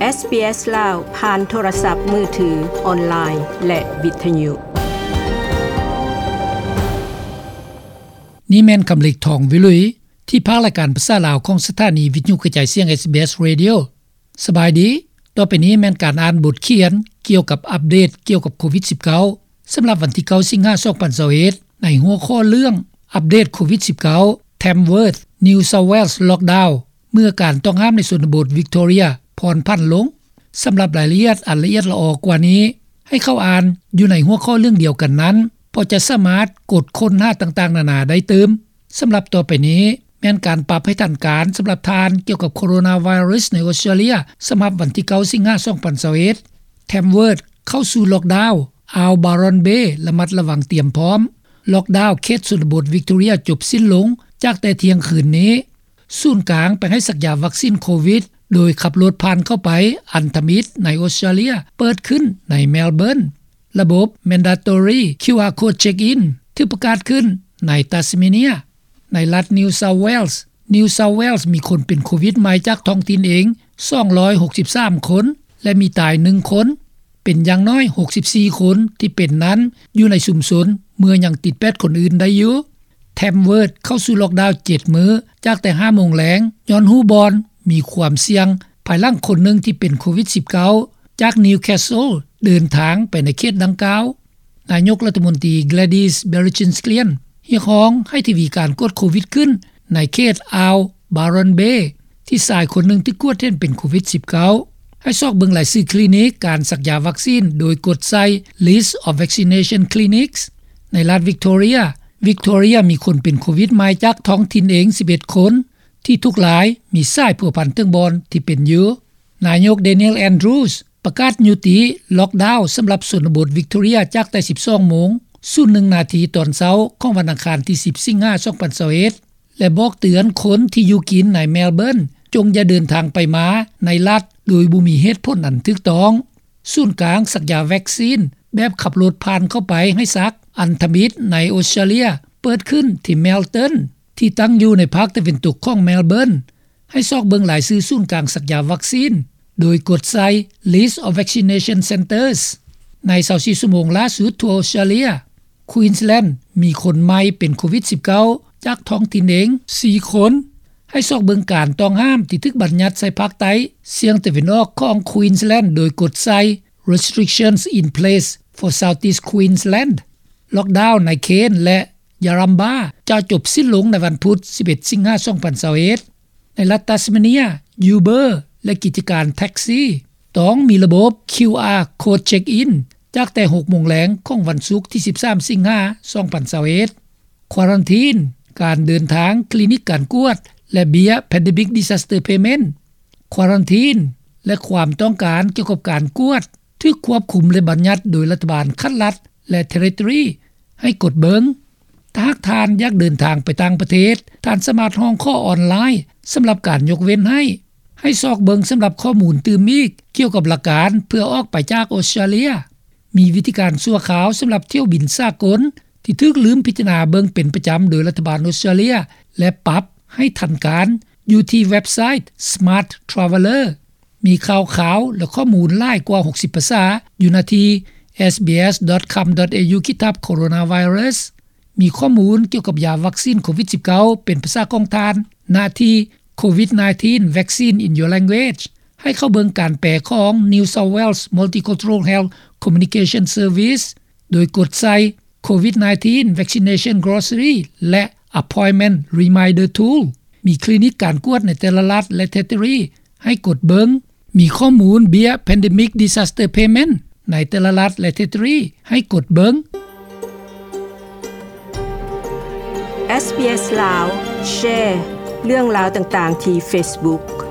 ເອສບີເອສ ລາວ ຜ່ານໂທລະສັບມືຖື, ອອນລາຍ ແລະ ວິທະຍຸ. ນີ້ແມ່ນຄຳເລັກ ທອງວິລຸຍ ທີ່ພາກລາຍການພາສາລາວຂອງສະຖານີວິທະຍຸກະຈາຍສຽງ ເອສບີເອສ Radio. ສະບາຍດີ. ຕໍ່ໄປນີ້ແມ່ນການອ່ານບົດຂຽນກ່ຽວກັບອັບເດດກ່ຽວກັບໂຄວິດສິບເກົ້າ ສຳລັບວັນທີເກົ້າ ສິງຫາ ສອງພັນຊາວເອັດ ໃນຫົວຂໍ້ເລື່ອງ ອັບເດດໂຄວິດສິບເກົ້າ Tamworth New South Wales Lockdown ເມື່ອການຕ້ອງຫ້າມໃນຊົນນະບົດ Victoria ຜ່ອນຜັນລົງ. ສຳລັບລາຍລະອຽດອັນລະອຽດລະອໍກວ່ານີ້ ໃຫ້ເຂົ້າອ່ານຢູ່ໃນຫົວຂໍ້ເລື່ອງດຽວກັນນັ້ນ, ເພາະຈະສາມາດກົດຄົ້ນຫາຕ່າງໆນານາໄດ້ຕື່ມ. ສຳລັບຕໍ່ໄປນີ້ ແມ່ນການປັບໃຫ້ທັນການສຳລັບທ່ານກ່ຽວກັບໂຄໂຣນາໄວຣັສໃນອົດສະຕຣາເລຍ ສຳລັບວັນທີເກົ້າ ສິງຫາ ສອງພັນຊາວເອັດ. Tamworth ເຂົ້າສູ່ລັອກດາວ, ອ່າວ Byron Bay ລະມັດລະວັງຕຽມພ້ອມ. ລັອກດາວເຂດຊົນນະບົດ Victoria ຈົບສິ້ນລົງຈາກແຕ່ທ່ຽງຄືນນີ້. ສູນກາງໄປໃຫ້ສັກຢາວັກຊີນໂຄວິດ ໂດຍຂັບລົດຜ່ານເຂົ້າໄປອັນທຳອິດໃນອົດສະຕຣາເລຍ ເປີດຂຶ້ນໃນ Melbourne. ລະບົບ Mandatory ຄິວອາ Code Check-in ຖືກປະກາດຂຶ້ນໃນ Tasmania. ໃນລັດ New South Wales, New South Wales ມີຄົນເປັນໂຄວິດໃໝ່ຈາກທ້ອງຖິ່ນເອງ ສອງຮ້ອຍຫົກສິບສາມຄົນ ແລະ ມີຕາຍໜຶ່ງຄົນ. ເປັນຢ່າງໜ້ອຍ ຫົກສິບສີ່ຄົນທີ່ເປັນນັ້ນ ຢູ່ໃນຊຸມຊົນ ເມື່ອຍັງຕິດແປດຄົນອື່ນໄດ້ຢູ່. Tamworth ເຂົ້າສູ່ລັອກດາວເຈັດມື້ ຈາກແຕ່ຫ້າໂມງແລງ ຍ້ອນຮູ້ບ່ອນມີຄວາມສ່ຽງ ພາຍຫຼັງຄົນໜຶ່ງທີ່ເປັນໂຄວິດສິບເກົ້າ ຈາກ Newcastle ເດີນທາງໄປໃນເຂດດັ່ງກ່າວ. ນາຍົກລັດຖະມົນຕີ Gladys Berejiklian ຮຽກຮ້ອງໃຫ້ທະວີການກວດໂຄວິດຂຶ້ນໃນເຂດອ່າວ Byron Bay ທີ່ຊາຍຄົນໜຶ່ງຖືກກວດເຫັນເປັນໂຄວິດສິບເກົ້າ. ໃຫ້ຊອກເບິ່ງລາຍຊື່ຄລີນິກການສັກຢາວັກຊີນ ໂດຍກົດໃສ່ List of Vaccination Clinics. ໃນລັດ Victoria, Victoria ມີຄົນເປັນໂຄວິດໃໝ່ຈາກທ້ອງຖິ່ນເອງ ສິບເອັດຄົນ ທີ່ທຸກລາຍມີສາຍພົວພັນເຖິງບ່ອນທີ່ເປັນຢູ່. ນາຍົກ Daniel Andrews ປະກາດຍຸຕິລັອກດາວສຳລັບຊົນນະບົດ Victoria ຈາກແຕ່ສິບສອງໂມງ ສູນໜຶ່ງນາທີຕອນເຊົ້າຂອງວັນອັງຄານທີສິບ ສິງຫາ ສອງພັນຊາວເອັດ ແລະ ບອກເຕືອນຄົນທີ່ຢູ່ກິນໃນ Melbourne ຈົ່ງຢ່າເດີນທາງໄປມາໃນລັດໂດຍບໍ່ມີເຫດຜົນອັນຖືກຕ້ອງ. ສູນກາງສັກຢາວັກຊີນແບບຂັບລົດຜ່ານເຂົ້າໄປໃຫ້ສັກອັນທຳອິດໃນອົດສະຕຣາເລຍ ເປີດຂຶ້ນທີ່ Melton ທີ່ຕັ້ງຢູ່ໃນພາກຕາເວັນຕົກຂອງ Melbourne. ໃຫ້ຊອກເບິ່ງລາຍຊື່ສູນກາງສັກຢາວັກຊີນ ໂດຍກົດໃສ່ List of Vaccination Centres. ໃນຊາວສີ່ຊົ່ວໂມງລ່າສຸດທົ່ວອົດສະຕຣາເລຍ, Queensland ມີຄົນໃໝ່ເປັນໂຄວິດສິບເກົ້າ ຈາກທ້ອງຖິ່ນເອງ ສີ່ຄົນ. ໃຫ້ຊອກເບິ່ງການຕ້ອງຫ້າມທີ່ຖືກບັນຍັດໃສ່ພາກໃຕ້ສຽງຕາເວັນອອກຂອງ Queensland ໂດຍກົດໃສ່ Restrictions in Place for Southeast Queensland. ລັອກດາວໃນ Cairns ແລະ Yarrambah ຈະຈົບສິ້ນລົງໃນວັນພຸດ ສິບເອັດ ສິງຫາ ສອງພັນຊາວເອັດ. ໃນລັດ Tasmania, Uber ແລະ ກິດຈະການແທັກຊີ ຕ້ອງມີລະບົບ QR Code Check-in ຈາກແຕ່ຫົກໂມງແລງຂອງວັນສຸກທີສິບສາມ ສິງຫາ ສອງພັນຊາວເອັດ. ຄວາຣັນທີນ, ການເດີນທາງ, ຄລີນິກການກວດ ແລະ ເບ້ຍ Pandemic Disaster Payment. ຄວາຣັນທີນ ແລະ ຄວາມຕ້ອງການກ່ຽວກັບການກວດ ຖືກຄວບຄຸມ ແລະ ບັນຍັດໂດຍລັດຖະບານຂັ້ນລັດ ແລະ Territory ໃຫ້ກົດເບິ່ງ. ຖ້າຫາກທ່ານຢາກເດີນທາງໄປຕ່າງປະເທດ, ທ່ານສາມາດຮ້ອງຂໍອອນລາຍສຳລັບການຍົກເວັ້ນໃຫ້. ໃຫ້ຊອກເບິ່ງສຳລັບຂໍ້ມູນຕື່ມອີກກ່ຽວກັບຫຼັກການເພື່ອອອກໄປຈາກອົດສະຕຣາເລຍ. ມີວິທີການຊົ່ວຄາວສຳລັບຖ້ຽວບິນສາກົນທີ່ຖືກລືມພິຈາລະນາເບິ່ງເປັນປະຈຳໂດຍລັດຖະບານອົດສະຕຣາເລຍ ແລະ ປັບໃຫ້ທັນການ ຢູ່ທີ່ເວັບໄຊ Smart Traveller. ມີຂ່າວຄາວ ແລະ ຂໍ້ມູນຫຼາຍກວ່າຫົກສິບພາສາຢູ່ໜ້າທີ່ sbs.com.au/coronavirus. ມີຂໍ້ມູນກ່ຽວກັບຢາວັກຊີນໂຄວິດສິບເກົ້າ ເປັນພາສາຂອງທ່ານ ໜ້າທີ່ COVID nineteen Vaccine in Your Language. ໃຫ້ເຂົ້າເບິ່ງການແປຂອງ New South Wales Multicultural Health Communication Service ໂດຍກົດໃສ່ COVID nineteen Vaccination Glossary ແລະ Appointment Reminder Tool. ມີຄລີນິກການກວດໃນແຕ່ລະລັດ ແລະ Territory ໃຫ້ກົດເບິ່ງ. ມີຂໍ້ມູນເບ້ຍ Pandemic Disaster Payment ໃນແຕ່ລະລັດ ແລະ Territory ໃຫ້ກົດເບິ່ງ. SBS ລາວ ແຊເລື່ອງລາວຕ່າງໆທີ່ Facebook.